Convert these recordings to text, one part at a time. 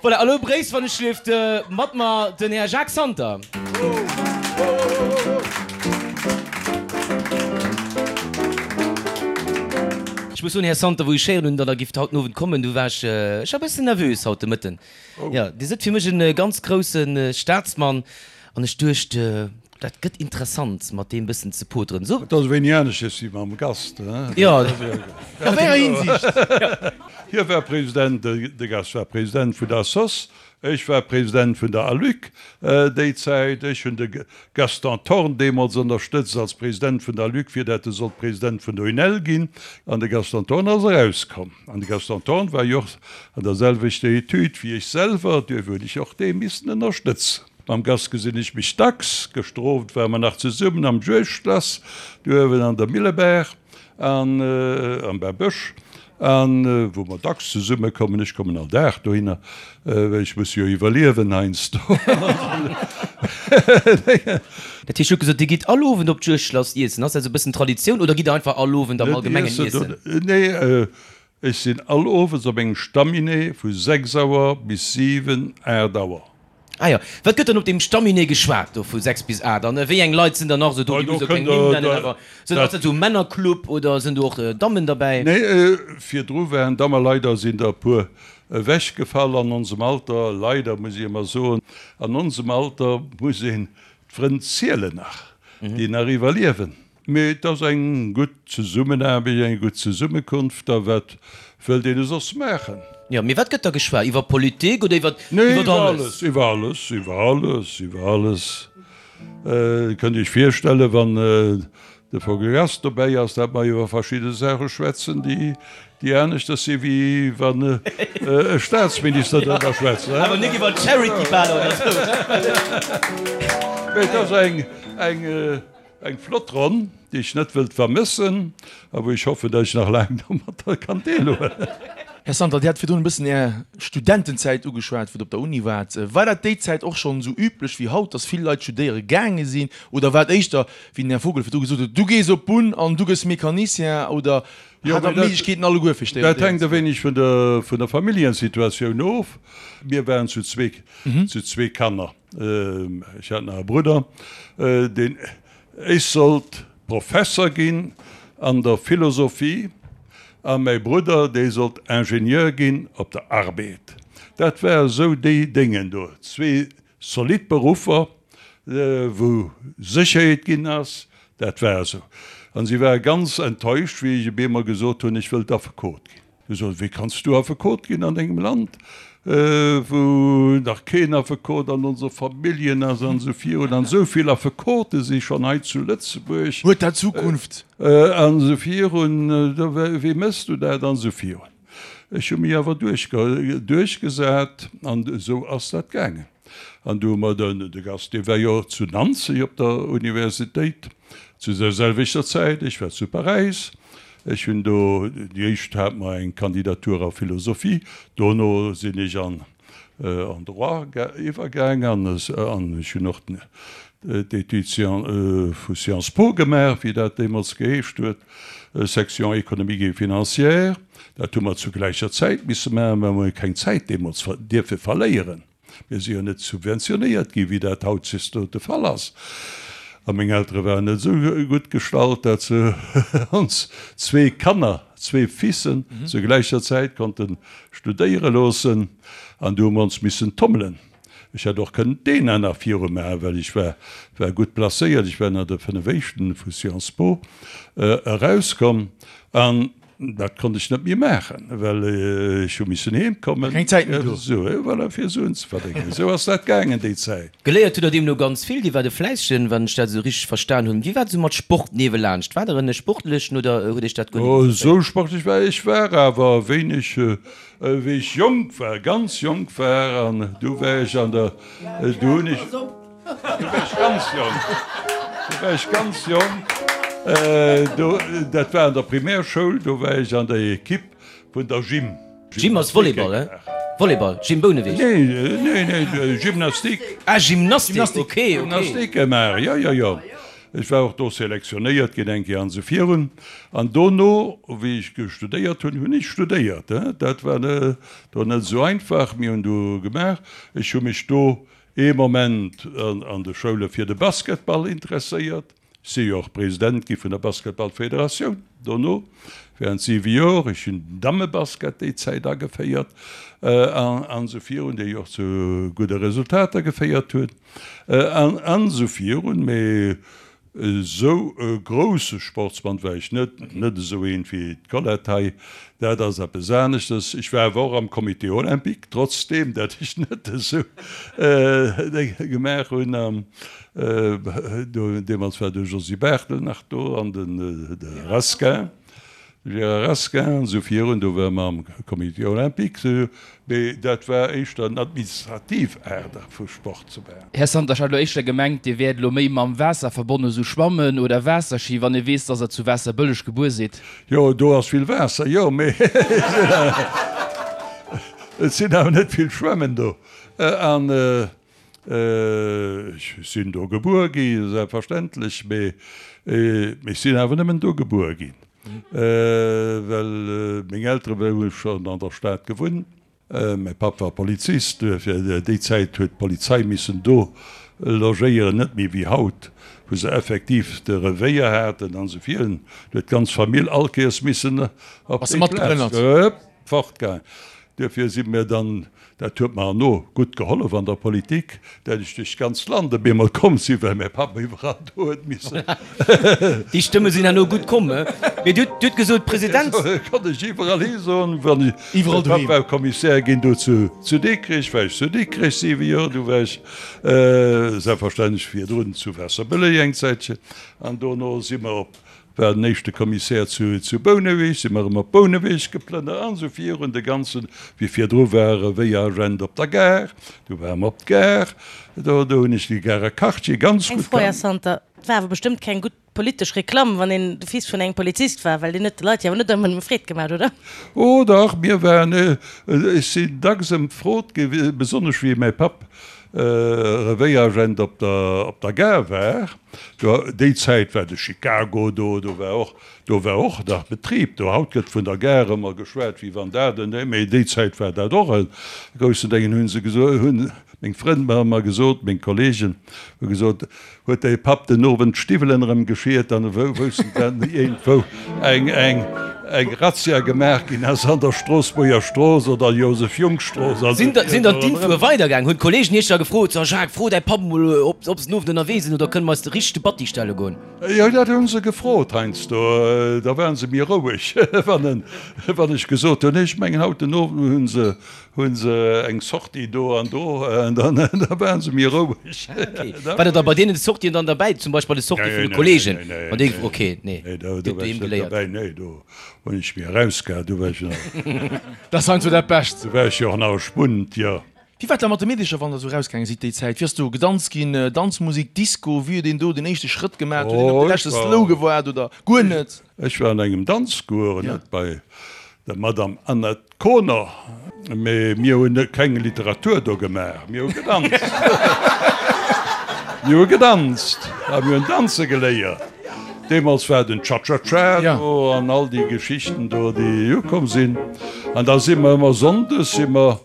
Voilà, elo bréisst wann ech lieft mat mer den Här Jacques Santer. Ech muss soen, Här Santer, wou ech héieren hunn, datt Der gifft haut den Owend kommen, du war ech, ech war e bëssen nervös haut de Mëtten. Jo, Dir sidd fir mech e ganz grousse Staatsmann an ech duecht, Dat gëtt interessant mat deem bëssen ze poteren. Sou. Et ass e wéini aneschters wéi mam Gast, hein? Jo, a wéi enger Hinsicht? Hie war President, de Gast war President vun der sos, ech war President vun der ALUC déi Zäit. Ech hunn de Gaston Thorn deemools ënnerstëtzt als President vun der ALUC, fir dat e sollt President vun der UNEL ginn. An de Gaston Thorn ass erauskomm. An de Gaston Thorn war jo och an der selwechter Etüd wéi ech selwer, duerfir hunn ech och dee missen ënnerstëtzen. Mam Gast gesinn ech mech dacks. Gëschter Owend ware mer nach zesummen am Juegdschlass do uewen an der Millebaach an am Bärbësch, an wou mer dacks zesumme kommen. Ech kommen all Dag dohinner, well ech muss jo iwwerliewen heiansdo. Dat heescht, Dir hutt gesot, Dir gitt all Owend op d'Juegdschlass iessen. Ass dat esou e bëssen Traditioun oder gitt Der einfach all Owend am Allgemengen iessen? Nee, ech sinn all Owes op engem Stamminee vu 6 Auer bis 7, 8 Auer. Ah jo. Wat gëtt dann op deem Stamminee geschwat do vu 6 bis 8? An wéi eng Leit sinn dann nach esou do? Dir musst jo keng Nimm nennen, awer sinn, ass dat esou e Männerclub oder sinn do och Dammen derbäi? Nee, virdru waren Dammen, leider sinn der e puer ewechgefall an onsem Alter, leider muss ech ëmmer soen, an onsem Alter muss een d'Frënn zielen nach, déi nach iwwerliewen. Mee et ass eng gutt Zesummenaarbecht, eng gutt Zesummekunft. A wat wëllt een soss maachen? Jo, mee wat gëtt da geschwat? Iwwer Politik oder iwwer Nee, iwwer alles? Iwwer alles, iwwer alles, iwwer alles. Dir kënnt Iech virstellen, wann de Vogel Gast dobäi ass, dat mer iwwer verschidde Saache schwätzen, déi, déi aneschters si wéi wann e Staatsminister driwwer schwätzt. Awer net iwwer Charity-Baler oder esou. Mee et ass eng, eng. Eng flott Ronn, déi ech net wëllt vermëssen a wou ech hoffen, datt ech nach laang domatter kann deelhuelen. Här Santer, Dir hat virdrun e bëssen Är Studentenzäit ugeschwat, wou Der op der Uni waart. War dat déi Zäit och schonn esou üblech wéi haut, datt vill Leit studéiere gaange sinn? Oder war et éischter, wéi den Här Vogel virdru gesot huet, du gees op d'Bunn an du gëss Mecanicien? Oder hat Der d'Méiglechkeeten alleguer fir studéieren ze goen? Dat hänkt e wéineg vun der vun der Familljensituatioun of. Mir waren zu zweek, zu zwee Kanner. Ech hat nach e Brudder, deen, ech sollt Professer ginn an der Philosophie a mäi Brudder, dee sollt Ingenieur ginn op der Arbed. Dat war esou déi Déngen do, zwee zolidd Beruffer, wou Sécherheet ginn ass, dat war esou. An si ware ganz enttäuscht, wéi ech op eemol gesot hunn, ech wëllt Affekot ginn. Du soss, wéi kanns du Affekot ginn an engem Land, wou nach keen Affekot an onser Familljen ass an esou virun, an esou vill Affekote si schonn hei zu Lëtzebuerg. Huet dat Zukunft? An esou virun, wéi méchs du dat an esou virun. Ech hu mech awer duerchgesat an esou ass dat gaangen. An du hu mer den, de Gast, dee war jo zu Nanzeg op der Universitéit zu der selwechter Zäit, ech war zu Paräis, Ech hunn do, déi éischt hat mer eng Kandidatur a Philosophie, dono sinn ech an en Droit iwwergaang an ech hunn och d'Études vu Sciences Po gemaach, wéi dat deemools geheescht huet, Section économique et financière. Dat hu mer zu gläicher Zäit misse maachen, well mer hu keng Zäit deemools dierfe verléieren. Mir si jo net subventionéiert ginn, wéi dat hautdesdaags de Fall ass. A meng Eltere waren net esou gutt gestallt, dat se ons zwee Kanner, zwee Fissen, zur gläicher Zäit konnte studéiere loossen. An du hu mer ons missen tommelen. Ech hätt och kënnen d'ENA nach viru maachen, well ech war war gutt placéiert. Ech war ënner de 5 Éischten vu Sciences Po erauskomm. An Dat konnt ech net méi maachen, well ech hu missen heem kommen. Keng Zäit méi do. Sou, voilà, fir Suen ze verdéngen. Esou ass dat gaangen déi Zäit. Geléiert hutt Der deemno ganz vill. Dir waart e Fläissegen, wann ech dat esou richteg verstan hunn. Wéi war et esou mat Sport niewelaanscht? Waart Der en Sportlechen oder huet Iech dat guer net interesséiert? Esou sportlech war ech war awer wéineg, wéi ech jonk war, ganz jonk war. An du war ech an der, du hunn ech. Du war ech ganz jonk. Du war ech ganz jonk. Do, dat war an der Primärschoul, do war ech an der Equipe vun der Gym. Gym ass Volleyball, he? Volleyball, Gym Bouneweg? Nee, nee, nee, Gymnastik. Ah, Gymnastik, okay, okay. Gymnastik gemaach, jo, jo, jo. Ech war och do selektionéiert ginn eng Kéier an esou virun. An dono, wéi ech studéiert hunn, hunn ech studéiert. Dat war do net esou einfach. Mir hunn do gemaach. Ech hu mech do ee Moment an de Schoule fir de Basketball interesséiert. Ech si jo och President gi vun der Basketballfederatioun dono während siwe Jor. Ech hunn den Dammebasket déi Zäit ageféiert an esou virun, déi och zu gudde Resultater geféiert hunn an esou virun. Mee esou e grousse Sportsmann war ech net, net esou een wéi d'Colette hei, dat ass eppes aneschtes. Ech war awer och am Comité olympique, trotzdeem dat ech net esou gemaach hunn. Deemools war de Josy Barthel nach do an de Rasquin, de Gérard Rasquin an esou virun. Do ware mer am Comité olympique, mee dat war éischter en administrativ Aart vu Sport ze maachen. Här Santer, ech hat elo éischter gemengt, Dir wäert elo méi mam Waasser verbonnen, esou Schwammen oder Waasserschi, wann ee weess, dass Der zu Waasserbëlleg gebuer sidd. Jo, do ass vill Waasser, jo, mee et sinn awer net vill Schwämmen do. An Ech sinn do gebuer gi, selbstverständlech, mee ech sinn awer nëmmen do gebuer ginn, well meng Eltere hu schonn an der Stad gewunnt. Mäi Papp war Polizist, duerfir déi Zäit huet d'Polizei missen do logéieren, net méi wéi haut, wou se effektiv de Revéier haten an esou virun. Do huet d'ganz Famill all Kéiers missen op déi Plaz. Fortgaangen. Duerfir si mir dann, dat huet mer herno gutt gehollef an der Politik, dat ech duerch d'ganzt Land op eemol komm sinn, well mäi Papp iwwerall do huet missen. Déi Stëmme sinn herno gutt komm, he? Mee Dir hutt gesot, President. Konnt ech iwwerall hi soen, wann ech, mäi Papp war Kommissär ginn do zu Dikrech, war ech zu Dikrech siwe Joer, du war ech selbstverständlech virdrun zu Waasserbëlleg eng Zäitchen an dono si mer op War den éischte Kommissär zu Bouneweg, si mer erëm op Bouneweg geplënnert an esou virun. De ganzen, wéi virdru war e Wéier-Agent op der Gare, du ware mer op d'Gare, do do hunn ech de Garer Quartier ganz Eng gutt Fro, Här kannt. Santer, Et war awer bestëmmt keng gutt politesch Reklamm, wann een de Fils vun engem Polizist war, well deen huet de Leit jo awer net ëmmer nëmme Freed gemaach, oder? Oh dach, mir waren, ech sinn dacks ëmfrot gi, besonnesch wéi mäi Papp Revéieragent op der op der Gare war. Do, déi Zäit war de Chicago do, do war och, do war och nach Betrib do. Haut gëtt vun der Gare ëmmer geschwat, wéi wann dat en, mee déi Zäit war dat och e groussen Déngen, hu se gesot, hunn meng Frënn mer ëmmer gesot, meng Kollegen hu gesot, huet däi Papp den Owend d'Stiwwelen erëm geschiert, dann woussten se iergendwou eng, eng, eng Razzia gemaach ginn ass an der Stroossbuerger Strooss oder Joseph-Junk-Strooss. Sinn dann d'Infoe weidergaangen? Hunn d'Kollegen iech da gefrot, So Jacques, fro däi Papp emol, ob se den Owend ënnerwee sinn oder kënne mer eis de richtege Batti stelle goen? Jo, dat hu se gefrot heiansdo. Da ware se méi roueg, wann ech gesot hunn, ech mengen haut den Owend hu se Hunn se eng Sortie do an do, dann waren se méi roueg. War der da bei deenen Sortien dann derbäi, zum Beispill bei de Sortie vun de Kollegen? Ok, nee, do war ech net derbäi, nee, do hunn ech mech erausgehal, do war ech nach. Dat ass heiansdo dat Bescht. Do war ech jo och nach e Spunt, jo. Wéi war et da mat de Meedecher, wann der esou erausgaange sidd déi Zäit? Wéi ass do gedanzt ginn, Danzmusik, Disco, wéi huet een do den éischte Schrëtt gemaach? Huet een op de leschte Slow gewaart oder guer net? Ech war an engem Danzcours, net bei der Madame Annette Koner, Mee mir hunn keng Literatur do gemaach, mir hu gedanzt. Mir hu gedanzt a mir hunn danze geléiert. Deemools war den Cha-Cha-Cha do an all déi Geschichten do, déi ukomm sinn. An da si mer ëmmer sonndes si mer,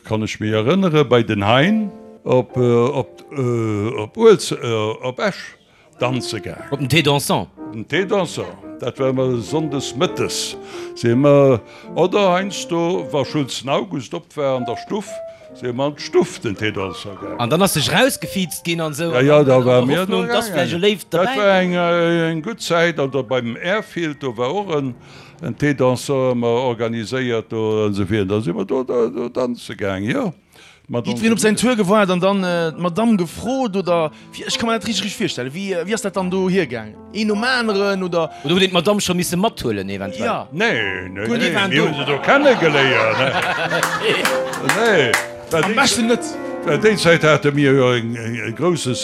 kann ech mech erënnere, bei den Hein op op Esch. Danze gaang. Op den Thé dansant. Op den Thé dansant, dat war ëmmer sonndes mëttes si mer, oder heiansdo wa Schulzen August op war an der Stuff, si mer an d'Stuff den Thé dansant gaang. An dann ass sech rausgefiizt ginn an esou. Ja, ja, da war mir do gaangen. Dat war eng gutt Zäit. An da beim Airfield, do war och en Thé dansant ëmmer organiséiert do an esou virun. Da si mer do danze gaang, jo. Jiddwereen op säin Tour gewaart an dann d'Madamm gefrot, oder wéi? Ech ka mer dat richteg richteg virstellen. Wéi wéi ass dat dann do hiergaang? Een nom aneren, oder? Oder hutt een d'Madamm scho misse mathuelen eventuell? Ja. Nee, nee, nee, mir hu se do kennegeléiert. Nee, well Am beschten net. Well déi Zäit hate mir jo e grousse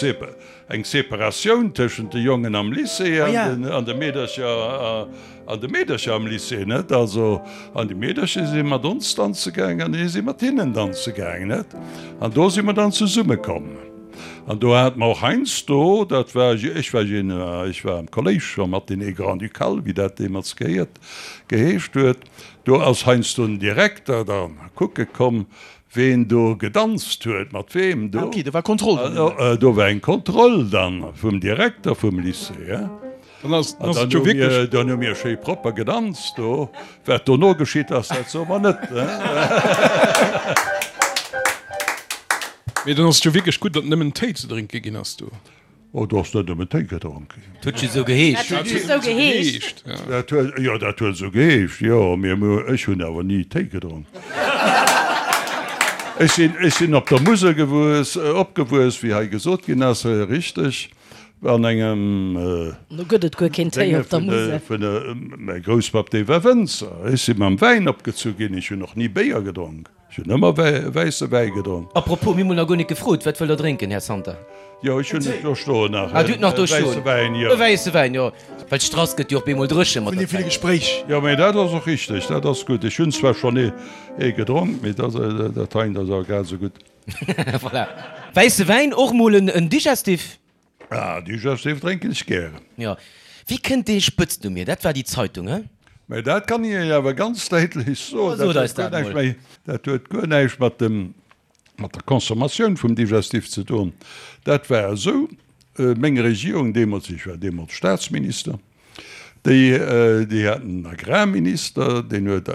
eng Separatioun tëschent de Jongen am Lycée an de Meedercher an de Meedercher am Lycée, net? Also, an déi Meedercher si mat ons danze gaang an mir si mat hinnen danze gaang, net? An do si mer dann zesummekomm. An do hate mer och heiansdo, dat war, ech war jeen, ech war am Kolléisch scho Matinée grand-ducale, wéi dat deemools gehéiert, geheescht huet, do ass heiansdo den Direkter da kucke komm, ween do gedanzt huet, mat weem do. Ah ok, do war Kontroll dann. Do war eng Kontroll dann vum Direkter vum Lycée. Dann ass et jo wierklech. Dann hu mir schéi propper gedanzt do. Wat dono geschitt ass, dat soe mer net. Mee dann ass et jo wierklech gutt, datt nëmmen Téi ze drénke ginn ass do. Oh, do ass net nëmmen Téi gedronk ginn. Dat huet jo esou geheescht. Dat huet just esou geheescht. Dat huet, jo, dat huet esou geheescht, jo. Mee ech hunn awer ni Téi gedronk. Ech sinn, ech sinn op der Musel gewuess, opgewuess, wéi hei gesot ginn ass, richteg, an engem. Do gëtt et guer keen Téi op der Musel. Vun, mäi Grousspapp, dee war Wënzer. Ech si mam Wäin opgezu ginn. Ech hunn och ni Béier gedronk. Ech hunn ëmmer wäisse Wäi gedronk. A propos, mir hunn nach guer net gefrot, wat wëllt der drénken, Här Santer? Jo, ech hunn et do stoen nach. Ah, Dir hutt nach do stoen. Wäisse Wäin, jo. E wäisse Wäin, jo. Well d'Strass gëtt jo och bemol dréche mat der Zäit. Vun deem ville Gespréich. Jo, mee dat ass och richteg, dat ass gutt. Ech hunn zwar schonn ee gedronk, mee dat dat heint ass awer grad esou gutt. Voilà. Wäisse Wäin, och mol en Digestif? Ah, Digestif drénken ech gären. Jo. Wéi kënnt dee Spëtznumm hier? Dat war déi Zeitung, he? Mä dat kann ech Iech awer ganz däitlech soen, Sot dat eis huet guer dat näischt mol. méi, dat huet guer näischt mat dem, mat der Consommatioun vum Digestif ze doen. Dat war esou, meng Regierung deemools, ech war deemools Staatsminister, Déi, déi haten en Agrarminister, deen huet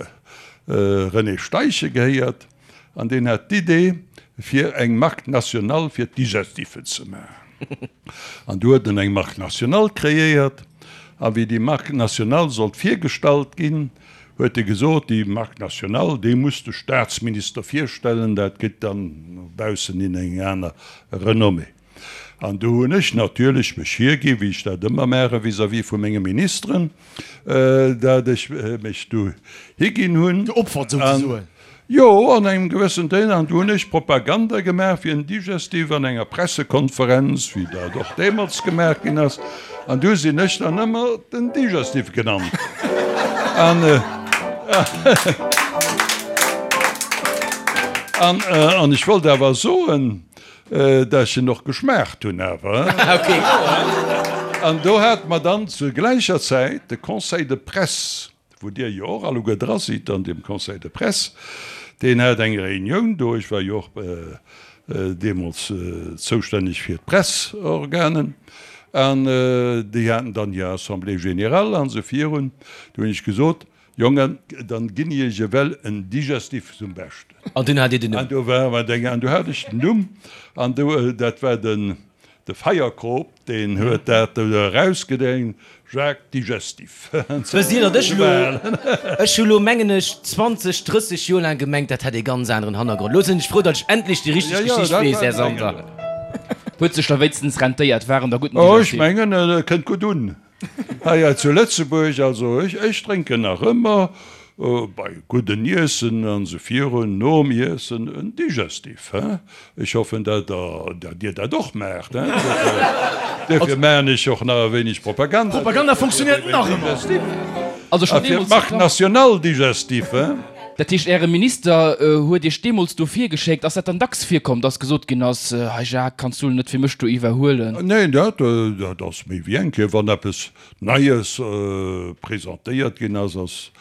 René Steichen gehéiert, an deen hat d'Idee, fir eng Marque nationale fir d'Digestiffen ze maachen. An du huet en eng Marque nationale kreéiert, a wéi déi Marque nationale sollt virgestallt ginn, huet e gesot, déi Marque nationale, déi muss de Staatsminister virstellen, dat kritt dann no baussen hin eng aner Renommée. An do hunn ech natierlech mech hiergi, wéi ech dat ëmmer maache vis-à-vis vu menge Ministeren, dat ech mech do higinn hunn. Geopfert souzesoen. Jo, an engem gewëssen Deel. An do hunn ech Propaganda gemaach fir en Digestif an enger Pressekonferenz, wéi dat och deemools gemaach ginn ass. An du sinn ech dann ëmmer den Digestif genannt. An, an, an ech wollt awer soen, Dat ech en och geschmaacht hunn awer. An do hate mer dann zur gläicher Zäit de Conseil de presse, wou Dir jo och alleguer dra sidd an deem Conseil de presse, deen hat eng Reunioun do, ech war jo och deemools zoustänneg fir d'Pressorganen, an déi haten dann hir Assemblée générale an esou virun. Do hunn ech gesot, Jongen, dann ginn iech ewell en Digestif zum Beschten. An dunn hat Dir den Numm. An do war mer deng, an do hat ech den Numm, an do, dat war den, de Feierkrop, deen huet dat do erausgedréint, Jacques Digestif. Wësst Dir, datt ech elo, ech hu lo mengen ech 20, 30 Joer laang gemengt, dat hätt ee ganz aneren Hannergrond. Lo sinn ech frou, datt ech endlech déi richteg Geschicht weess, Här Santer. Huet sech da wéinstens rentéiert, war en da gudden Oh, ech Digestif? mengen, et kënnt gutt un. Hei zu Lëtzebuerg, also ech, ech drénken nach ëmmer bei gudden Iessen an esou virun, nom Iessen en Digestif, hein. Ech hoffen, dat der, dat Dir dat och maacht, hein. Duerfir maachen ech och nach e wéineg Propaganda. Propaganda funktioniert nach ëmmer. Also A schon fir deemools d'Marque nationale Digestif, hein. Dat heescht, Äre Minister huet Iech deemools do virgeschéckt. Ass dat dann dacks virkomm, dass gesot ginn ass, Hei Jacques, kanns du net fir mech do iwwerhuelen? Neen, dat ass méi wéi eng Kéier, wann eppes Neies presentéiert ginn ass, ass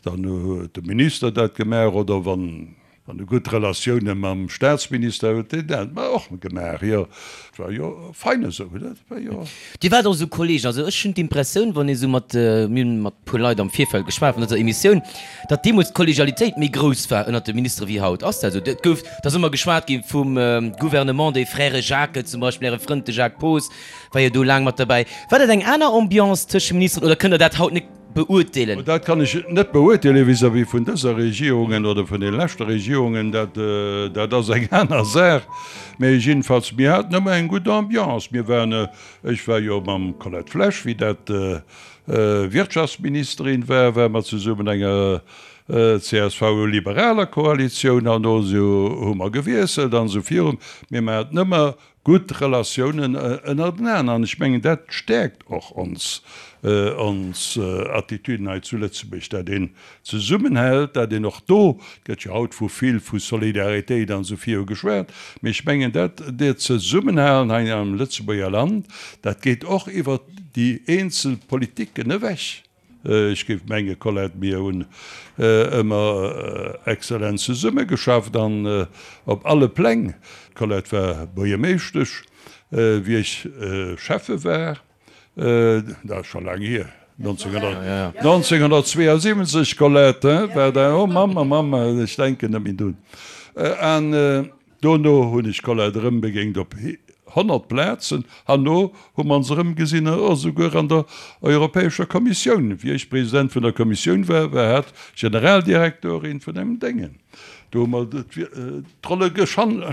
dann huet de Minister dat gemaach oder wann e gutt Relatioune mam Staatsminister huet, deen dat och gemaach. Jo, et war jo fein esou, dat war jo. Dir waart och esou Kolleegen. Also ech hunn d'Impressioun, wann ee sou mat, mir hunn mat puer Leit am Virfeld geschwat vun dëser Emissioun, datt deemools d'Kollegialitéit méi grouss war ënnert de Ministere wéi haut. Ass dat esou? Et gouf, et ass ëmmer geschwat gi vum Gouvernement des frères Jacques zum Beispill, Äre Frënd de Jacques Poos war jo do laang mat derbäi. War dat eng aner Ambiance tëscht de Ministeren oder kënnt Der dat haut net beurteelen? Dat kann ech net beurteelen vis-à-vis vun dëser Regierungen oder vun deene leschte Regierungen. Dat, dat ass eng aner Saach. Mä jiddefalls, mir haten ëmmer eng gutt Ambiance. Mir waren, ech war jo mam Colette Flesch, wéi dat Wirtschaftsministerin war, ware mer zesummen enger. CSV-liberaler Koalitioun, herno hu mer gewiesselt an esou virun. Mee mer haten ëmmer gutt Relatiounen ënnertenaan an ech mengen, dat stäerkt och ons, ons Attitüden hei zu Lëtzebuerg, dat een zesummenhält, dat een och do, et gëtt jo haut vu vill vu Solidaritéit an esou viru geschwat, mee ech mengen, dat dat Zesummenhalen hei am Lëtzebuerger Land, dat geet och iwwert déi eenzel Politiken ewech. Ech géif menge Colette, mir hunn ëmmer exzellent zesummegeschafft an op alle Pläng. D'Colette war Buergermeeschtesch, wéi ech Schäffe war, dat ass scho laang hier, 1972, Colette, war dat, oh Mamm, oh Mamm, ech denken net méi drun. An Dono hunn ech d'Colette erëm begéint op 100 Plazen. Herno hu mer ons erëm gesinn, esouguer an der Europäescher Kommissioun. Wéi ech President vun der Kommissioun war, war hat Generaldirektorin vun engem Déngen. Do hu mer d'Rolle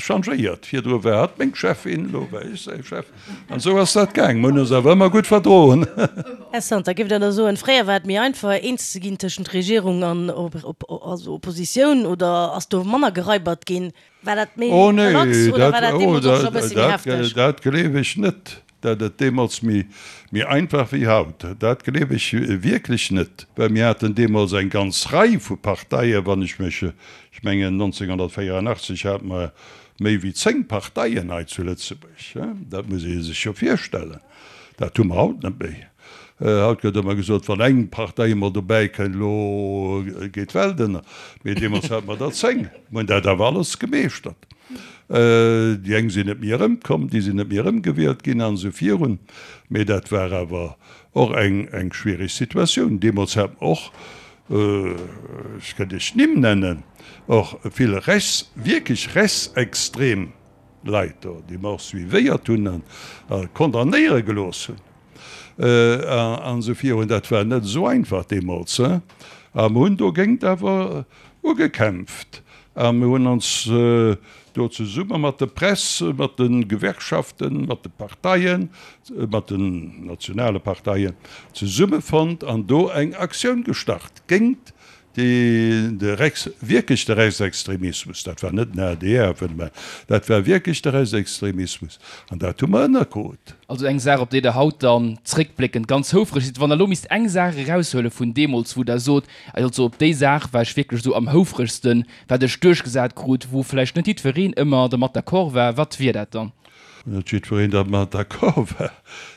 changéiert. Virdru war hat meng Cheffin, elo war ech säi Chef. An esou ass dat gaang. Mer hunn ons awer ëmmer gutt verdroen. Här Santer, géift Der da soen, fréier war et méi einfach, eens ze ginn tëschent Regierung an Oppositioun, oder ass do manner geraibert ginn? War dat méi Oh nee, relax oder war dat, dat oh, deemools och scho e dat, bëssi méi dat, hefteg? dat gleef ech net, dat et deemools méi, méi einfach wéi haut. Dat gleef ech wierklech net, well mir haten deemools eng ganz Rei vu Parteien, wann ech mech, ech mengen 1984 hate mer méi wéi 10 Parteien hei zu Lëtzebuerg, dat muss ee sech jo virstellen, dat hu mer haut net méi. Haut gëtt ëmmer gesot, wann eng Partei emol dobäi kënnt, elo geet d'Welt ënner. Mee deemools hate mer der 10. Mer hunn dat awer alles gemeeschtert. Déi eng sinn net méi erëmkomm, déi sinn net méi erëmgewielt ginn an esou virun. Mee dat war awer och eng schwierig Situatioun. Deemools hat mer och, ech kënnt Iech Nimm nennen, och vill rechts, wierklech rechtsextrem Leit do, déi mer och suivéiert hunn a condamnéiere gelooss hunn an esou virun. Dat war net esou einfach deemools. A mer hunn dogéint awer ugekämpft a mer hunn ons do zesumme mat der Press, mat de Gewerkschaften, mat de Parteien, mat den nationale Parteien zesummefonnt an do eng Aktioun gestart géint De Rechts, wierklech de Rechtsextremismus, dat war net den adr, mä dat war wierklech de Rechtsextremismus, an dat hu mer ënnerkrut. Also eng Saach, op déi Der haut dann zréckbléckend ganz houfreg sidd. Wann Der elo misst eng Saach eraushuele vun deemools, wou Der sot, also op déi Saach war ech wierklech esou am houfregsten, wat ech duerchgesat krut, wou vläicht net jiddwereen ëmmer dermat d'accord war, wat wier dat dann? Net jiddwereen dermat d'accord war,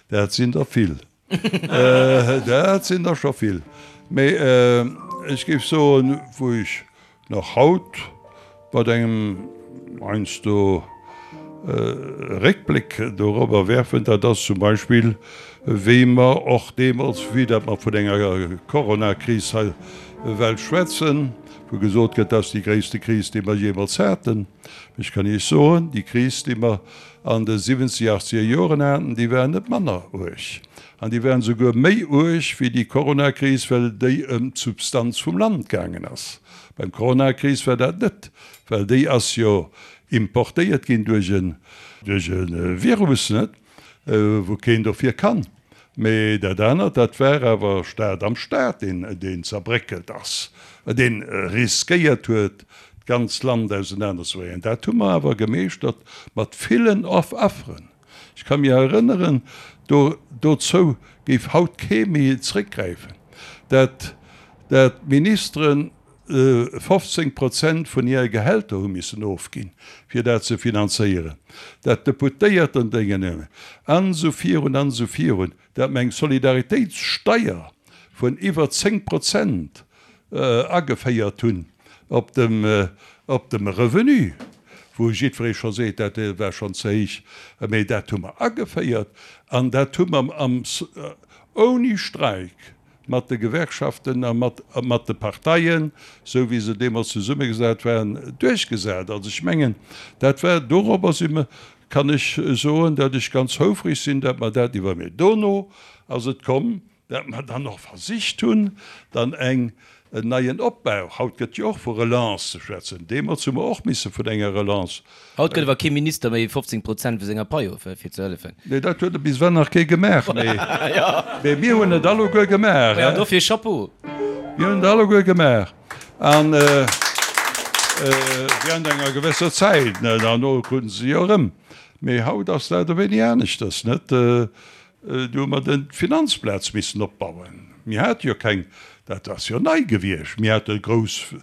dat sinn der vill. Dat sinn der scho vill. Mee ech géif soen, wou ech nach haut mat engem heiansdo Réckbléck dorobber werfen, dat ass zum Beispill, wéi mer och deemools, vue dat mer vun enger Coronakris hei well schwätzen, wou gesot gëtt, dat ass déi gréisste Kris, déi mer jeemools haten. Ech kann Iech soen, déi Kris, déi mer an de siwwenzeger, achtzeger Joren haten, déi waren net manner uerg. An déi waren esouguer méi uerg wéi déi Coronakris, well déi ëm d'Substanz vum Land gaangen ass. Beim Coronakris war dat net, well déi ass jo importéiert ginn duerch e Virus, net, wou keen dofir kann. Mee dat anert, dat war awer Staat am Staat, deen zerbréckelt ass, dee riskéiert huet, d'ganzt Land ausenanerzebréngen. Dat hu mer awer gemeeschtert mat villen Afferen. Ech ka mir erënneren, do dozou géif haut kee méi zréckgräifen, dat dat d'Ministeren 15 Prozent vun hire Gehälter hu missen ofginn, fir dat ze finanzéieren, dat d'Deputéierten Déngen an esou virun an esou virun, dat mer eng Solidaritéitssteier vun iwwer 10 Prozent ageféiert hunn op dem, op dem Revenu, wou jiddweree scho seet, dat war schonn ze héich, mee dat hu mer ageféiert an dat hu mer am, ouni Streik mat de Gewerkschaften a mat, mat de Parteien, esou wéi se deemools zesummegesat waren, duerchgesat. Also ech mengen, dat war, dorobber si mer, kann ech soen, datt ech ganz houfreg sinn, datt mer dat iwwer, mee dono ass et komm, dat mer dann och versicht hunn, dann eng, en neien Opbau, haut gëtt jo och vu Relance ze schwätzen, deemools hu mer och misse vun enger Relance. Haut gëtt awer kee Minister méi 15 Prozent vu senger Pai of, fir ze hëllefen. Nee, dat huet bis ewell nach kee gemaach, mee mir hunn et alleguer gemaach. Jo, dofir Chapeau! Mir hunn et alleguer gemaach. An während enger gewësser Zäit, herno kruten se se jo erëm. Mee haut ass dat e wéini aneschters, net? Do hu mer den d'Finanzplaz missen opbauen. Mir hate jo keng, dat ass jo nei gewiescht, mir hate grouss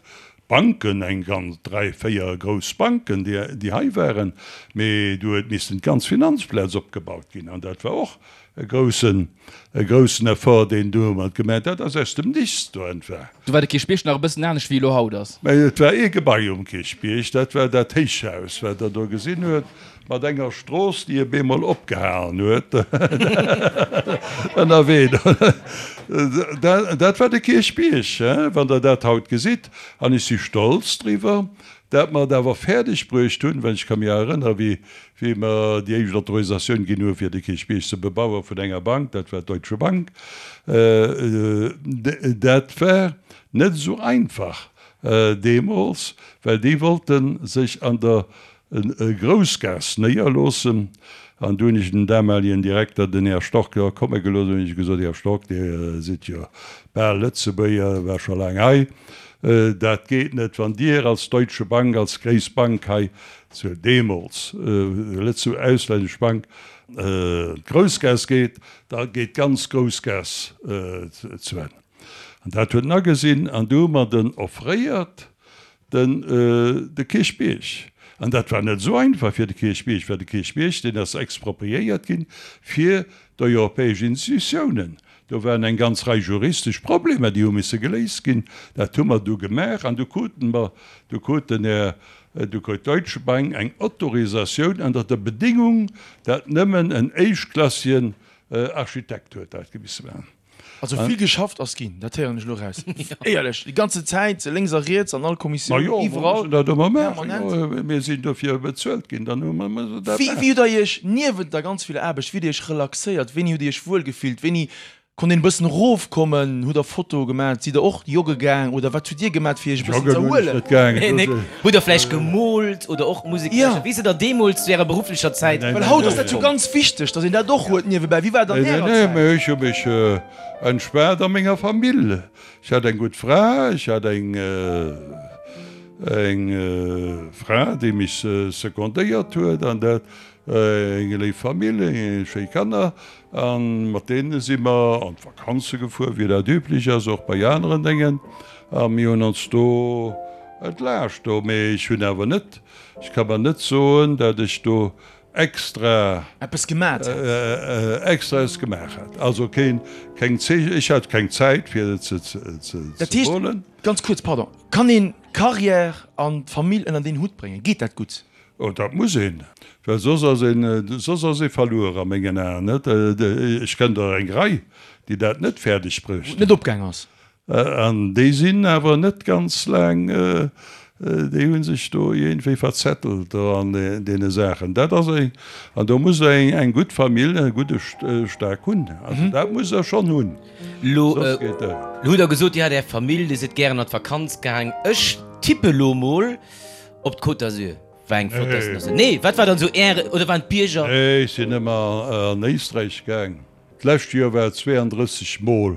Banken, eng ganz, dräi, véier grouss Banken, déi, déi hei waren, mee do huet missen d'ganz Finanzplaz opgebaut ginn an dat war och e groussen, e groussen Effort, deen do mat gemaach, dat ass aus dem Nichts do entwa. Do war de Kierchbierg nach e bëssen anescht wéi elo haut ass. Mä et war ee Gebai um Kierchbierg, dat war dat Héichhaus, wat Der do gesinn huet, mat enger Strooss, déi op eemol opgehalen huet ënnerwee. Dat war de Kierchbierg, wann Der dat haut gesitt. An ech si stolz driwwer, dat mer et awer fäerdeg bruecht hunn, well ech ka mir erënnere wéi wéi mer déi éischt Autorisatioun ginn hu fir de Kierchbierg ze bebaue vun enger Bank, dat war d'Deutsche Bank, dat war net esou einfach deemools, well déi wollte sech an der Groussgaass néierloossen. An du hunn ech den damaligen Direkter, den Här Storck, jo komme gelooss an hunn ech gesot, Här Storck, Dir sidd jo bal Lëtzebuerger, war scho laang hei, dat geet net, wann Dir als Deutsche Bank, als gréisst Bank hei zu deemools Lëtze auslännesch Bank, d'Groussgaass geet, da geet d'ganz Groussgaass zu Enn. An dat huet en agesinn an du hu mer den offréiert, den de Kierchbierg. An dat war net esou einfach fir de Kierchbierg, well de Kierchbierg, deen ass expropriéiert ginn fir d'europäesch Institutiounen. Do waren eng ganz Rei juristesch Problemer, déi hu misse geléist ginn. Dat hu mer du gemaach an du kruten mer, du krut den Här, du krut d'Deutsche Bank eng Autorisatioun ënner der Bedingung, dat nëmmen en éischtklassigen Architekt huet dat misse maachen. Also vill geschafft ass ginn, dat héieren ech elo eraus. Éierlech, déi ganze Zäit, lénks a riets, an all Kommissioun, iwwerall, permanent. Mir sinn dofir bezuelt ginn, dann hu mer mussen dat maachen. Wéi hutt Der Iech niewent der ganz viller Aarbecht, wéi hutt Dir Iech relaxéiert, wéini hutt Dir Iech wuel gefillt, wéini konnt een e bëssen erofkommen, hutt Der Fotoe gemaat, sidd Der och jogge gaang oder wat hutt Dir gemaat fir Iech e bëssen ze erhuelen? Hutt Der vläicht gemoolt oder och Musek gelauschtert? Wéi sidd Der deemools zu Ärer berufflecher Zäit? Well haut ass dat jo ganz wichteg, datt een dat och huet niewebäi. Wéi war et an Ärer Zäit? Nee, ech hu mech entspaant a menger Famill. Ech hat eng gutt Fra, ech hat eng eng Fra, déi mech secondéiert huet an dat, eng léif Famill, schéi Kanner. A mat deene si mer an d'Vakanze gefuer, wéi dat üblech ass, och bei aneren Déngen. A mir hunn ons do entlaascht do. Mee ech hunn awer net, ech ka mer net soen, dat ech do extra. Eppes gemat hätt. Extra eppes gemaach hätt. Also keen, keng Zeech, ech hat keng Zäit fir ze Dat heescht, molen. ganz kuerz, pardon, kann een d'Carrière an d'Famill ënnert een Hutt bréngen? Geet dat gutt? Oh, dat muss een, well soss ass een, soss ass ee verluer a mengen Aen, net? Ech kennen der eng Rei, déi dat net fäerdeg Wou et net opgaang ass. An déi sinn awer net ganz laang, déi hu sech do iergendwéi verzettelt do an deene Saachen. Dat ass eng, an do muss Der eng, eng gutt Famill, e gudde Stack hunn. Also dat musst Der schonn hunn, Lo soss geet dat. hutt Der gesot, Dir hat Är Famill, Dir sidd gären an d'Vakanz gaang. Ech tippe lo mol, Op d'Côte d'Azur war eng flott Destinatioun. Nee, wat war dann esou Äre, oder waren d'Bierger? Nee, ech sinn ëmmer an Éisträich gaang. D'lescht Joer war et 32 Mol,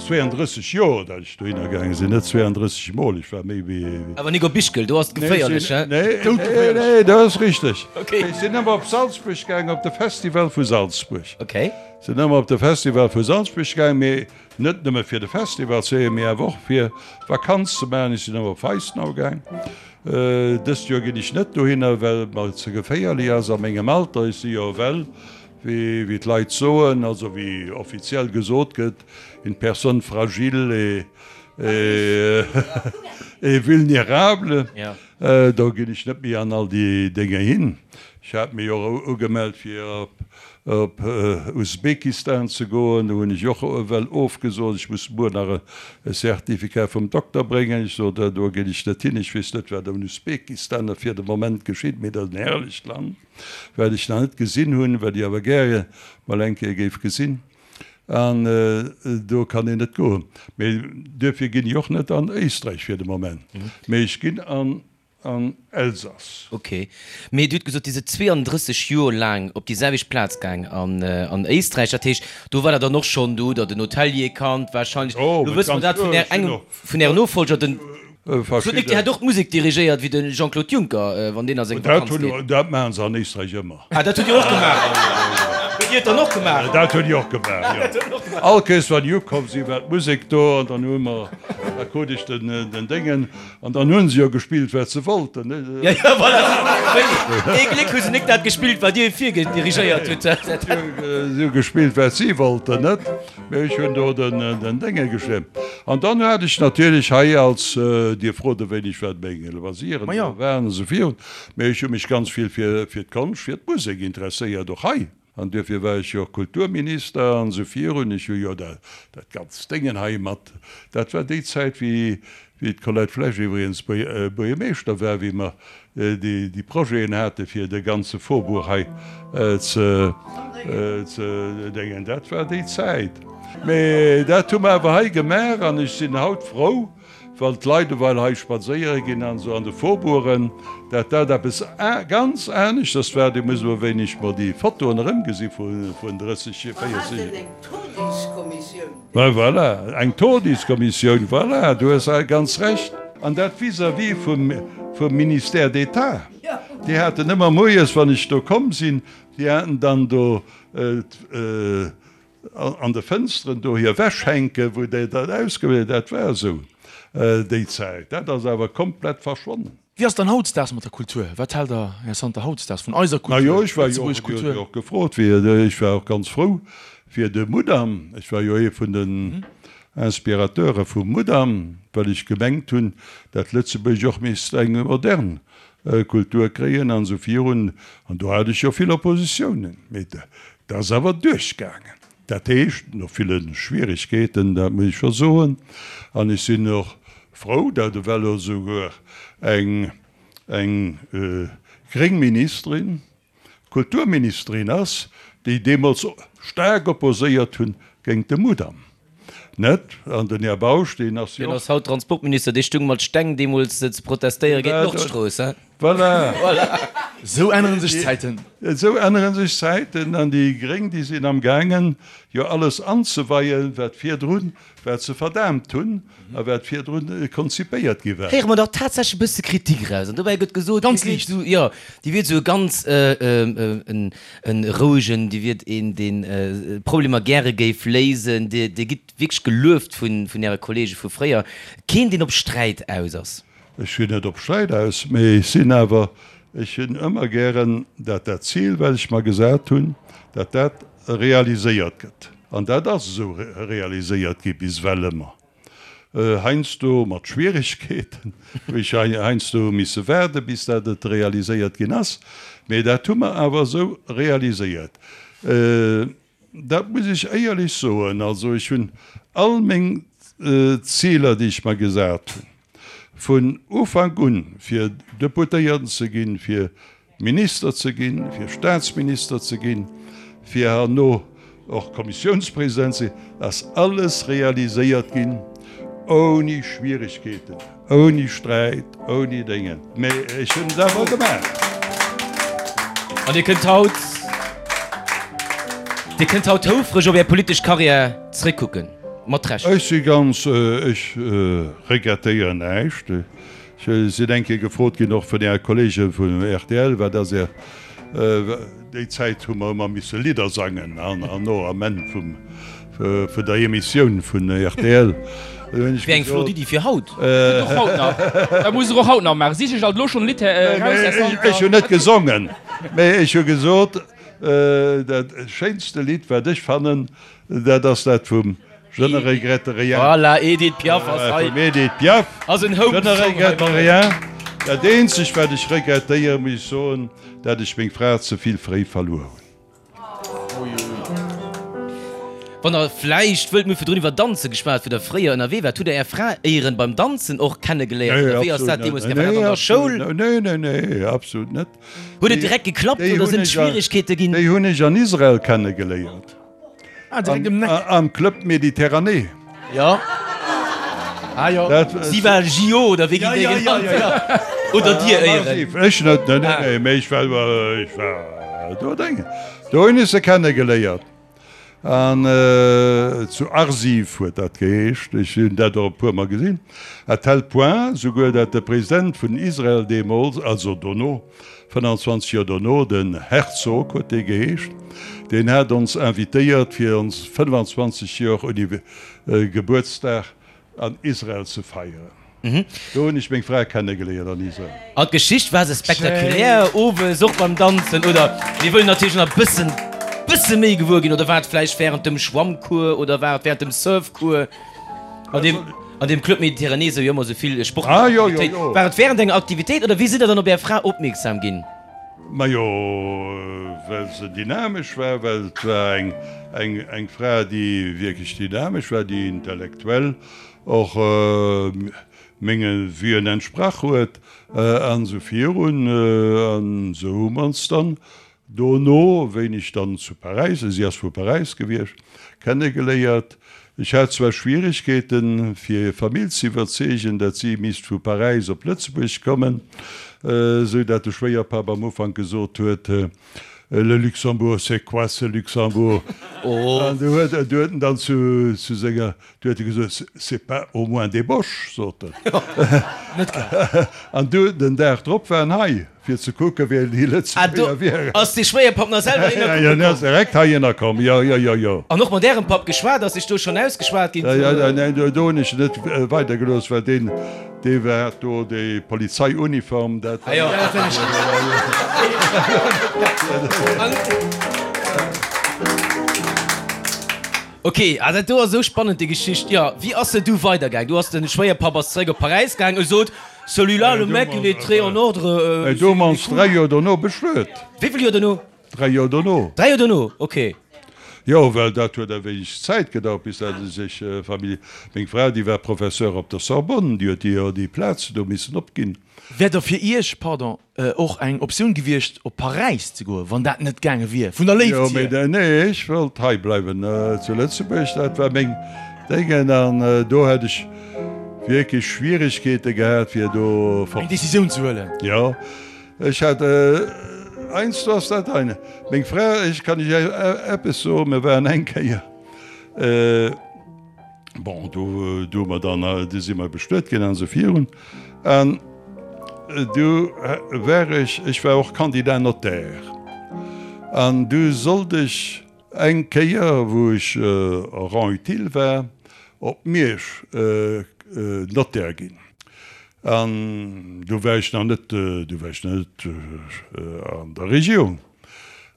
32 Joer, dat ech dohinner gaange sinn, net 32 Mol, ech war méi wéi. Awer nik op Ischgl, do ass et geféierlech, hä? Nee, nee, nee, dat ass richteg. Ech sinn ëmmer op Salzburg gaang, op de Festival vu Salzburg. Okay. Sinn ëmmer op de Festival vu Salzburg gaang, mee Net nëmme fir de Festival ze héieren, mee awer och fir Vakanz ze maachen. Ech sinn awer op Weissenau gaang. Dëst Joer ginn ech net dohinner, well et mer ze geféierlech ass a mengem Alter. Ech si jo ewell, wéi d'Leit soen, also wéi offiziell gesot gëtt, une personne fragile et vulnérable. Do ginn ech net méi an all déi Dénger hin. Ech hat mech och ugemellt fir op op Usbekistan ze goen. Do hunn ech och ewell ofgesot. Ech muss muer nach e Certificat vum Dokter bréngen. Ech sot, do ginn ech net hin. Ech weess net, wat am Usbekistan fir de Moment geschitt, mee dat ass en herrlecht Land, wat ech nach net gesinn hunn, wat ech awer gäre mol eng Kéier géif gesinn. An do kann een net goen. Mee duerfir ginn ech och net an Éisträich fir de Moment. Mee ech ginn an An Elsass. Ok. Mee Dir hutt gesot, Dir sidd 32 Joer laang op déi selwecht Plaz gaang an an Éisträich. Dat heescht, do war Der dann och schonn, do hutt Der den Hotelier kannt warscheinlech. Jo, Lo wësse mer dat vun Är, engem vun Ären Nofolger, den. Sot Nick, Dir hätt och d'Musek dirigéiert wéi de Jean-Claude Juncker, wann deen a seng Vakanz geet. Dat maachen se an Éisträich ëmmer. Ah, dat hutt Dir och gemaach? Hutt Dir et dann och gemaach? Dat hunn ech och gemaach, jo. All Kéiers wann déi ukomm sinn, war d'Musek do an dann hu mer, da krut ech den Déngen an dann hu se jo gespillt wat se wollten, ne? Jo, jo, voilà. Wéi ee Gléck hu se nik dat gespillt, wat Dir virgedirigéiert hutt. Si hu gespillt wat si wollten, net? Mee ech hunn do den Dénge geschriwwen. An dann hat ech natierlech hei als, Dir frot e wéineg wat meng Loisiren esou waren an esou virun, Mee ech hu mech ganz vill fir d'Konscht, fir d'Musek interesséiert, och hei. An duerfir war ech jo och Kulturminister an esou virun. Ech hu jo dat ganzt Déngen hei mat, dat war déi Zäit, wéi d'Colette Flesch iwwregens Buergermeeschter war, wéi mer déi Projeten hate fir de ganze Faubourg hei ze déngen. Dat war déi Zäit. Mee dat hu mer awer hei gemaach an ech sinn haut frou, Wann d'Leit ewell hei spadséiere ginn an esou an de Faubourgen, dat dat eppes ganz aneschters war. Dir musst elo wéineg mol déi Fotoen erëmgesi vun 30, 40 Joer. Eng Todiskommissioun. Voilà, eng Todiskommissioun, voilà, du hues ganz Recht. An dat vis-à-vis vum Ministère d'État. Déi haten ëmmer moies, wann ech do komm sinn, déi haten dann do An de Fënsteren do hir Wäsch hänken, wou déi dat ausgewielt, dat war esou déi Zäit. Dat ass awer komplett verschwonnen. Wéi ass et dann hautzdaags mat der Kultur? Wat hält Der, Här Santer, hautzdaags vun eiser Kultur, Majo, ech war jo lëtzebuergesch och, Dir hutt Kultur? jo och gefrot, wéi, ech war och ganz frou fir de Mudam. Ech war jo ee vun den Inspirateure vum Mudam, well ech gemengt hunn, dat Lëtzebuerg och misst eng modern Kultur kréien an esou virun. An do hat ech jo vill Oppositiounen, mee Dat ass awer duerchgaangen. Dat heescht, no ville Schwierigkeeten, dat muss ech scho soen. An ech sinn och frou, datt ewell elo souguer eng, eng gréng Ministerin Kulturministerin ass, déi deemools staark opposéiert hunn géint de Mudam. Net? An den Här Bausch, deen ass jo Deen och. ass haut Transportminister, dee stung mat Steng deemools ze protestéiere géint d'Nordstrooss, he? Voilà! Voilà! Esou änneren sech d'Zäiten. Esou ännere sech d'Zäiten an déi Gréng, déi sinn amgaangen, jo alles anzeweien, wat virdrun, wat se verdaamt hunn a wat virdrun konzipéiert gi war. Héiere mer dach tatsächlech e bësse Kritik eraus. An dobäi gëtt gesot, Ganz Dir wiert liicht. esou, jo, Dir wiert esou e ganz, en E rouegen, Dir wiert een, deen Problemer gäre géif léisen. Dir gitt wierklech gelueft vun Äre Kollege vu fréier. Keen, deen op Sträit aus ass. Ech sinn net op Sträit aus, mee ech sinn awer, ech hunn ëmmer gären, dat dat Zil, wat ech mer gesat hunn, dat dat realiséiert gëtt. An dat ass esou realiséiert gi bis ewell ëmmer. Heiansdo mat Schwieregkeeten, wou ech heiansdo hu misse waarde bis dat et realiséiert ginn ass, mee dat hu mer awer esou realiséiert. Dat muss ech éierlech soen. Also ech hunn all meng Ziler, déi ech mer gesat hunn, vun Ufank un, fir Deputéierten ze ginn, fir Minister ze ginn, fir Staatsminister ze ginn, fir herno och Kommissiounspresident ze ginn, ass alles realiséiert ginn ouni Schwieregkeeten, ouni Sträit, ouni Déngen. Mee ech hunn et awer gemaach. An Dir kënnt haut, Dir kënnt haut houfreg op Är politesch Karriär zréckkucken, mat Recht. Ech si ganz, ech regrettéieren näischt. Ech sinn eng Kéier gefrot ginn, och vun Äre Kollege vun rtl, wat ass Är, déi Zäit hu mer ëmmer misse Lidder sangen an no am Enn vum, vun der Emissioun vun rtl. Do hunn ech Wär eng flott gesot. Iddi fir haut. Gëtt och haut nach. Dat musst Der och haut nach maachen. Sich ech alt elo schonn e Lidd eraus, Här Santer. Ech hunn net gesongen, mä ech hu gesot, dat schéinste Lidd, wat ech fannen, dat ass dat vum Je ne regrette rien. Voilà, Edith Piaf ass hei. Vum Edith Piaf. Ass en Home Je ne Song hei regrette mat. rien. Dat eenzegt wat ech regrettéieren, muss ech soen, dat ech meng Fra ze vill fréi verluer hunn. Wann der vläicht wëllt, mir hu virdrun iwwer Danze geschwat, wou der fréier ënnerwee waart. Hutt der Är Fra éieren beim Danzen och kennegeléiert oder wéi ass dat deemools gaangen? War dat an der Schoul? Nee, nee, nee, absolut net. Huet et direkt geklappt oder sinn et Schwieregkeete ginn? Déi hunn ech an Israel kennegeléiert. Ah, direkt um Neck. Am Club Méditerranée. Jo. Ah jo. Si war JO oder wéi ginn déi genannt? Oder dir éieren? Ech net, nee, nee, mee ech war, ech war do Déngen. Do hunn ech se kennegeléiert. An zu Arsiv huet dat geheescht. Ech hunn dat och e puermol gesinn. À tel point souguer, dat de President vun Israel deemools, also dono, 25 Joer dono, den Herzog huet dee geheescht, deen hat ons invitéiert fir ons 25 Joer Gebuertsdag an Israel ze feieren. Do hunn ech meng Fra kennegeléiert an Israel. An d'Geschicht, war se spektakulär owes, och beim Danzen, oder mir wëllen natierlech nach e bëssen, bësse méi gewuer ginn, oder war et vläicht wärend dem Schwammcours oder war et wärend dem Surfcours an deem, an deem Club Méditerranée sou jo ëmmer sou vill sportlech Aktivitéit, war et wärend enger Aktivitéit oder wéi sidd der dann op är Fra opmierksam ginn? Majo, well se dynamesch war, well et war eng, eng, eng Fra, déi wierklech dynamesch war, déi intellektuell och menge Vuen entsprach huet an esou virun. An esou hu mer ons dann Dono, wéini ech dann zu Paräis, si ass vu Paräis gewiescht, kennegeléiert. Ech hat zwar Schwieregkeeten, fir hir Famill ze iwwerzeegen, dat si misst vu Paräis op Lëtzebuerg kommen, esou dat de Schwéierpapp am Ufank gesot huet, Le Luxembourg, c'est quoi ce Luxembourg? An du huet en dann zu senger Du huet e gesot, C'est pas au moins des Boches, sot en. An du, den Dag drop war en hei, fir ze kucken, wéi déi Lëtzebuerger wieren. Ass dee Schwéierpapp nach selwer hinner kucke komm? Jo, en ass direkt heihinner komm, jo, jo, jo, jo. An och mat Ärem Papp geschwat? Ass sech do schonn ausgeschwat ginn? Jo, jo, neen, do hunn ech en net weidergelooss, well deen, dee hat do déi Polizeiuniform, dat war. Ok, ah dat do ass esou spannend déi Geschicht. Jo, wéi ass se du weider gaang? Du ass den Schwéierpapp ass zeréck op Paräis gaang, e sot, Celui-là, le mec, il est très en ordre. Et do hu mer ons 3 Joer dono bestuet. Wéi vill Joer dono? 3 Joer dono. 3 Joer dono, ok. Jo, well dat huet e wéineg Zäit gedauert, bis dat e sech Famille. Meng Fra, déi war Professeur op der Sorbonne, déi huet jo déi Plaz do missen opginn. Wär da fir Iech, pardon, och eng Optioun gewiescht op Paräis ze goen, wann dat net gaange wier vun der Léift hier? Jo, mee nee, ech wollt hei bleiwen zu Lëtzebuerg, dat war meng Déngen an do hätt ech wierklech Schwieregkeete gehat fir do fort. Eng Decisioun ze huelen. Jo, ech hat heiansdo ass dat ein. Meng Fra, ech kann Iech eppes soen, mir waren eng Kéier, Bon, do, do hu mer dann, du si mer bestuet ginn an esou virun. An du war ech, ech war och Candidat Notaire. An du sollt ech eng Kéier, wou ech en rang utile war, op Miersch Notaire ginn. An du war ech nach net, du war ech nach net an der Regierung.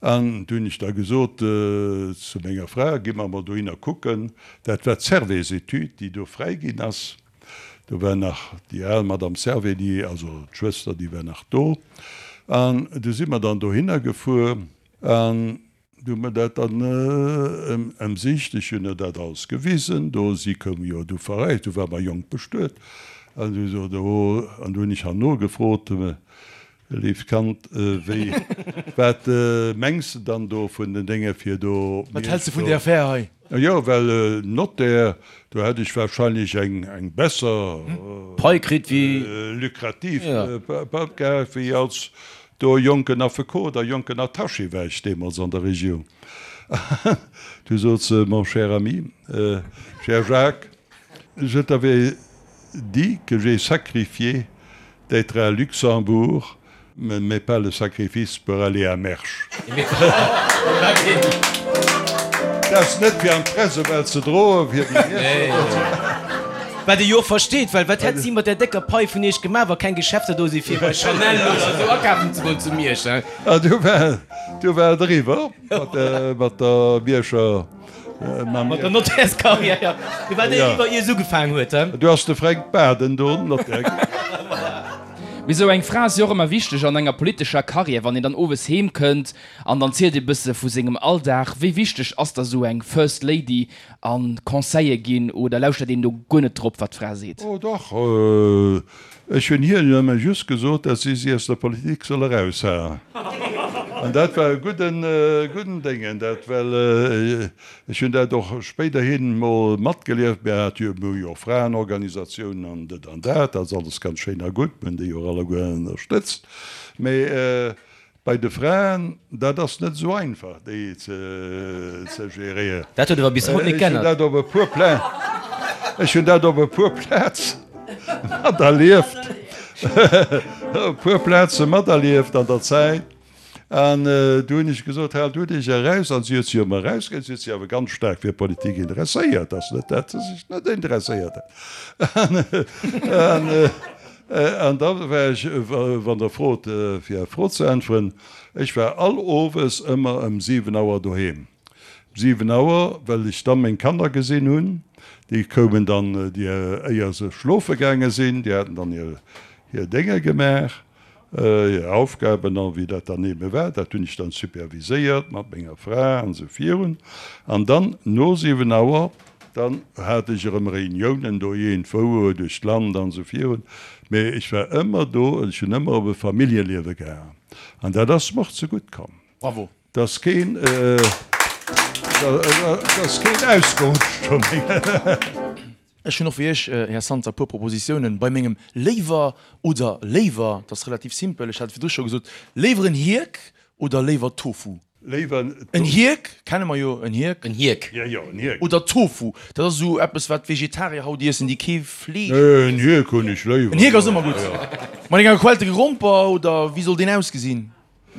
An du hunn ech da gesot zu menger Fra, Gi mer emol dohinner kucken. Dat war d'Servais-Études, déi do fräi ginn ass. Do war nach déi al Madame Servais, déi, also d'Schwëster, déi war nach do. An du si mer dann dohinner gefuer an du hu mer dat dann ëmsicht. Ech hunn der dat alles gewisen do. Si koum jo du verreist, du war mer jonk bestuet. An du sot, oh, an du hunn ech herno gefrot, Léift Kand, wéi, wat mengs de dann do vun den Dénge fir do. Wat häls de vun där Affär hei? Jo, well Notaire, do hätt ech wahrscheinlech eng, eng besser. Pai kritt wéi. Lukrativ Pai gehat wéi als do jonken Affekot a jonken Attaché war ech deemools an der Regierung. Du sot se, Mon cher ami, cher Jacques, je t'avais dit que j'ai sacrifié D'être à Luxembourg, mais pas le sacrifice pour aller à Mersch. Dat ass net fir an d'Pressewelt ze droen, fir déi Mierscher. Wat ee jo och versteet, well wat hätt si mat där décker Pai vun iech gemaach, wa keng Geschäfter do si fir bei Chanel oder esou akafen ze goen zu Miersch, hein? An du war, du war et eriwwer mat der Mierscher. Mat der Nottärskarriär, jo. Du war déi eriwwer, ier se ugefaangen huet, he? Du ass de Fränk Baden do Nottär ginn. Mee sou eng Fra ass jo och ëmmer wichteg an enger politescher Karriär, wann een dann owes heem kënnt an dann zielt ee bësse vu sengem Alldag. Wéi wichteg ass da sou eng First Lady a Conseile ginn oder lauschtert een do guer net drop, wat d'Fra seet? Oh dach, Ech hunn hir nëmme just gesot, dass si si aus der Politik soll eraushalen. An dat war e gudden, gudden Déngen, dat, well ech hunn dat och spéiderhin mol matgelieft. Mir hate jo, mir hu jo och Fraenorganisatiounen an dat an dat, dat ass alles ganz schéin a gutt, mir hunn déi och alleguer ënnerstëtzt. Mee. Bei de Fraen, dat ass net esou einfach, déi ze geréieren. Dat huet awer bis haut net Ech hunn geännert. dat op e puer Pla, ech hunn dat op e puer Plaze materlieft, op e puer Plaze materlieft an der Zäit. An du hunn ech gesot, Haalt du dech eraus. An si huet sech ëmmer erausgehalen. Si huet sech awer ganz staark fir Politik interesséiert. Ass net, dat se sech net interesséiert hätt. An, an da war ech, wann Der frot, fir Är Fro ze äntweren, ech war all owes ëmmer ëm 7 Auer doheem. Ëm 7 Auer, well ech da meng Kanner gesinn hunn. Déi koumen dann, déi, éier se schlofe gaange sinn, déi haten dann hir, hir Dénge gemaach. Hir Aufgaben an wéi dat dann ebe war, dat hunn ech dann superviséiert mat menger Fra an esou virun. An dann no 7 Auer, dann hat ech erëm Reuniounen do iergendwou duerch d'Land an esou virun. Mee ech war ëmmer do, ech hunn ëmmer op e Familljeliewe gehaen an dat ass mer och zegutt komm. Bravo. 't ass keen, 't ass keen ausgerutscht vun menge. Ech hunn och fir Iech, Här Santer, e puer Propositiounen bei mengem Léiwer oder Léiwer. Dat ass relativ simpel, ech hat et virdru scho gesot, Léiwer en Hierk oder léiwer Tofu? Léiwer En Hierk kenne mer jo, en Hierk. En Hierk. Jo, jo, en Hierk. Oder Tofu, dat ass esou eppes, wat d'Vegetarier haut iessen, déi kee Fleesch Nee, en Hierk hunn ech léiwer. En Hierk ass ëmmer gutt. Mat enger gequellte Gromper, oder wéi soll deen ausgesinn?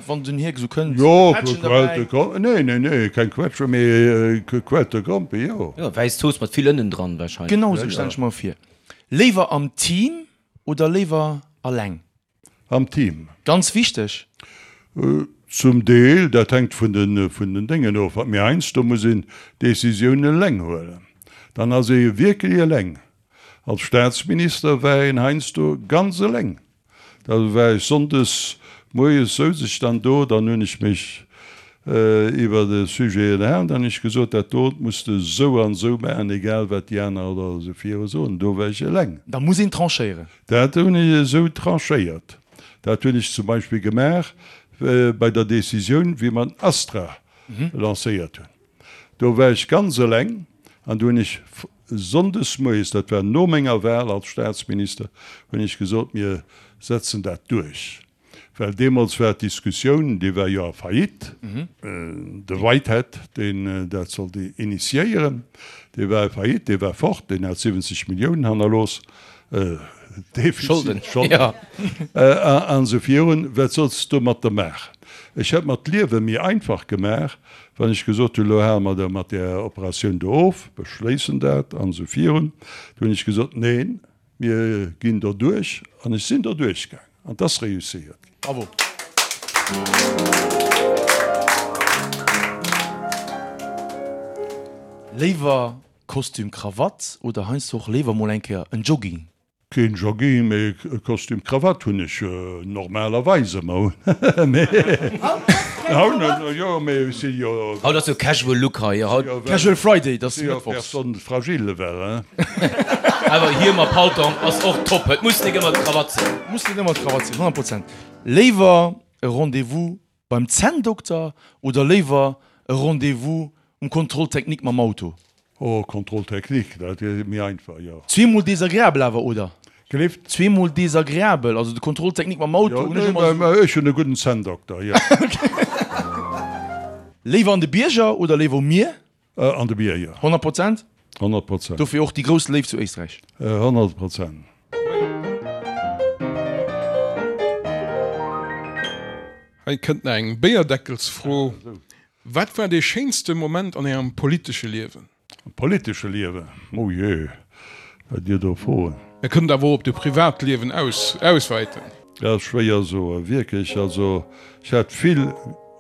Wann den Hierk esou kënnt, Jo, Quetschen derbäi? gequellte Gromp, nee, nee, nee, keng Quetsche, mee gequellte Grompe, jo. Jo, wäiss Zooss mat vill Ënnen dran wahrscheinlech. Genau esou stellen ech mer vir. Léiwer am Team oder léiwer alleng? Am Team. Ganz wichteg. Zum Deel, dat hänkt vun den, vun den Déngen of. Mee heiansdo muss een Decisiounen eleng huelen. Dann ass ee wierklech eleng. Als Staatsminister war een heiansdo ganz eleng. Da war ech sonndes moies, souz ech dann do, dann hunn ech mech iwwer e Sujet ënnerhalen, dann hunn ech gesot, dat dot muss de esou an esou maachen, egal wat déi aner oder esou viru soen. Do war ech eleng. Da muss een tranchéieren. Dat hunn ech esou tranchéiert. Dat hunn ech zum Beispill gemaach bei der Décisioun, wéi mer den Astra lancéiert hunn. Do war ech ganz eleng an do hunn ech sonndes moies, dat war no menger Wahl als Staatsminister, hunn ech gesot, mir setzen dat duerch. Well deemools war d'Diskussioun, dee war jo a Faillite, de Whitehead, deen dat sollt initiéieren, dee war a Faillite, dee war fort, deen hat 70 Milliounen hannerlooss, Defizit, Scholden an esou virun. Wat solls de domatter maachen? Ech hätt mer d'Liewe méi einfach gemaach, wann ech gesot hunn, elo hale mer da mat där Operatioun do of, beschléissen dat an esou virun. Du hunn ech gesot, neen, mir ginn doduerch an ech sinn doduerch gaangen an et ass reusséiert ginn. Bravo. Léiwer Kostüm Krawatt oder heiansdo och léiwer mol eng Kéier en Jogging? Keen Jogging, mee Kostüm Krawatt hunn ech normalerweis ëmmer un. Mee haut net, jo, mee ech si jo. Haut ass jo Casual Look hei, jo haut. Casual Friday, dat ass Si jo mëttwochs. Personne fragile ewell, hein. Awer Hiem a Paltong ass och top, et muss nik ëmmer d'Krawatt sinn. Muss net ëmmer d'Krawatt sinn, 100 Prozent. Léiwer e Rendez-vous Beim Zänndokter oder léiwer e Rendez-vous um Contrôle technique mam Auto? Oh, Contrôle technique, dat ass méi einfach, jo. Zweemol desagreabel awer, oder? Gelift? Zweemol desagreabel, also de Contrôle technique mam Auto Jo, hunn ech ëmmer nee, ech hunn e gudden Zänndokter, jo. Léiwer an de Bierger oder léiwer um Mier? An de Bierger. 100 Prozent? 100 Prozent. Dofir och déi grouss Léift zu Éisträich? 100 Prozent. Hei kënnt nach eng Béierdeckelsfro, Wat war dee schéinste Moment an Ärem politesche Liewen? Am politesche Liewen? Oh jee, wat Dir do froen. Dir kënnt awer och op de Privatliewen auswäiten. Dat ass schwéier soen, wierklech. Also ech hat vill,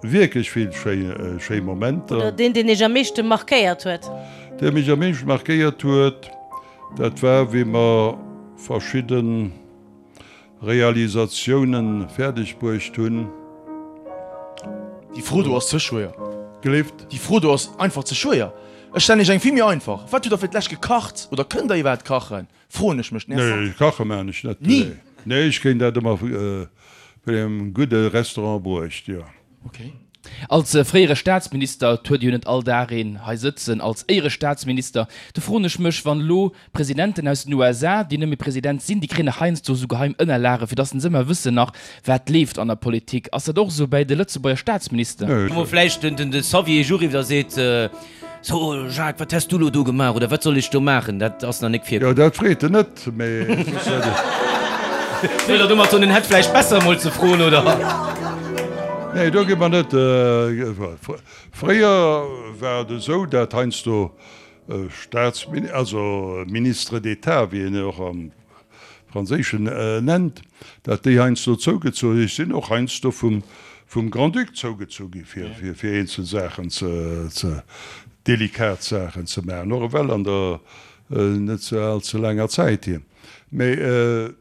wierklech vill schéi Momenter. Oder deen, deen Iech am meeschte markéiert huet? Dee mech am meeschte markéiert huet, dat war wéi mer verschidde Realisatiounen fäerdeg bruecht hunn. Déi Fro do ass ze schwéier. Gelift? Déi Fro do ass einfach ze schwéier. Ech stellen Iech eng vill méi einfach. Wat hutt Der fir d'lescht gekacht oder kënnt Der iwwerhaapt kachen? Froen ech mech. Nee, kache maan ech net. Ni? Nee, ech kréien dat ëmmer vun engem gudde Restaurant bruecht, jo. Ok. Als fréiere Staatsminister, et huet ee jo net all Dag een hei sëtzen als Éierestaatsminister, do froen ech mech, wann elo Presidenten aus den USA, déi net méi President sinn, déi kréien nach heiansdo esou geheim Ënnerlage fir datt se ëmmer wëssen nach wat leeft an der Politik. Ass dat och esou bäi de Lëtzebuerger Staatsminister? Wou vläicht den de Xavier Eech uriwwt a seet, So Jacques, wat häss du elo do gemaach oder wat soll ech do maachen? Dat ass nach nik virkomm. Jo, dat freet en net, mee soss hätt ech. Wëllt Der domat soen, en hätt vläicht besser emol ze froen, oder? Nee, do gi mer net. Fréier war et esou, dat heiansdo Staatsmin-, also Ministres d'État, wéi een och am Franséischen nennt, dat déi heiansdo zougezu. Ech sinn och heiansdo vum, vum Grand-Duc zougezu gi fir, fir, fir eenzel Saachen ze, ze, delikat Saachen ze maachen, och ewell an der net ze all ze laanger Zäit hier. Mä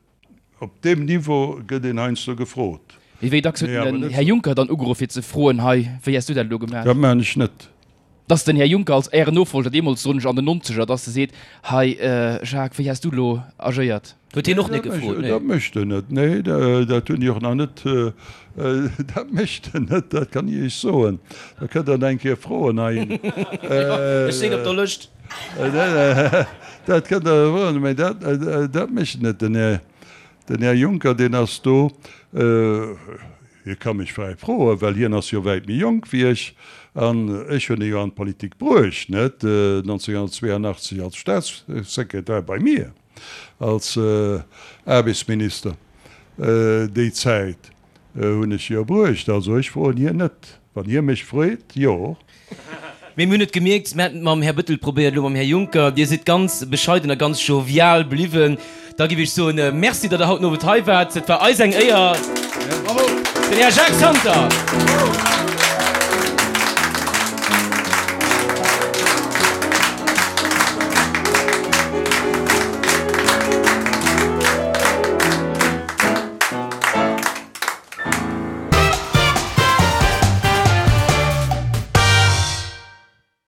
op deem Niveau gëtt een heiansdo gefrot. Mee wéi dacks huet den Här Juncker dann ugeruff fir ze froen, hei, wéi häss du dat elo gemaach? Dat maachen ech net. Dass den Här Juncker als Ären Nofolger, deemools soen ech an den Nonzeger, dass e seet, hei Jacques, wéi häss du elo agéiert? Huet hien och net gefrot, nee. Dat mécht en net, nee, dat hunn déi och nach net, dat mécht en net, dat kann ech Iech soen. Da kënnt Der en eng Kéier froen hei. Ech sinn op der Lëscht. Dat kënnt Der froen, mä dat, dat mécht en net. Den Här, den Här Juncker, deen ass do, Hie ka mech fräi froen, well hien ass jo wäit méi jonk wéi ech, an ech hunn e jo an d'Politik bruecht, net 1982 als Staatssekretär bei mir als Aarbechtsminister. Déi Zäit hunn ech jo bruecht. Also ech froen hien net. Wann hie mech freet, jo. Mee mir hunn et gemierkt, mir haten et mam Här Bettel probéiert, elo mam Här Juncker, Dir sidd ganz bescheiden a ganz jovial bliwwen. Da giff ech soen, Merci, datt Der haut den Owend hei waart. Et war eis eng Éier. Den Här Jacques Santer.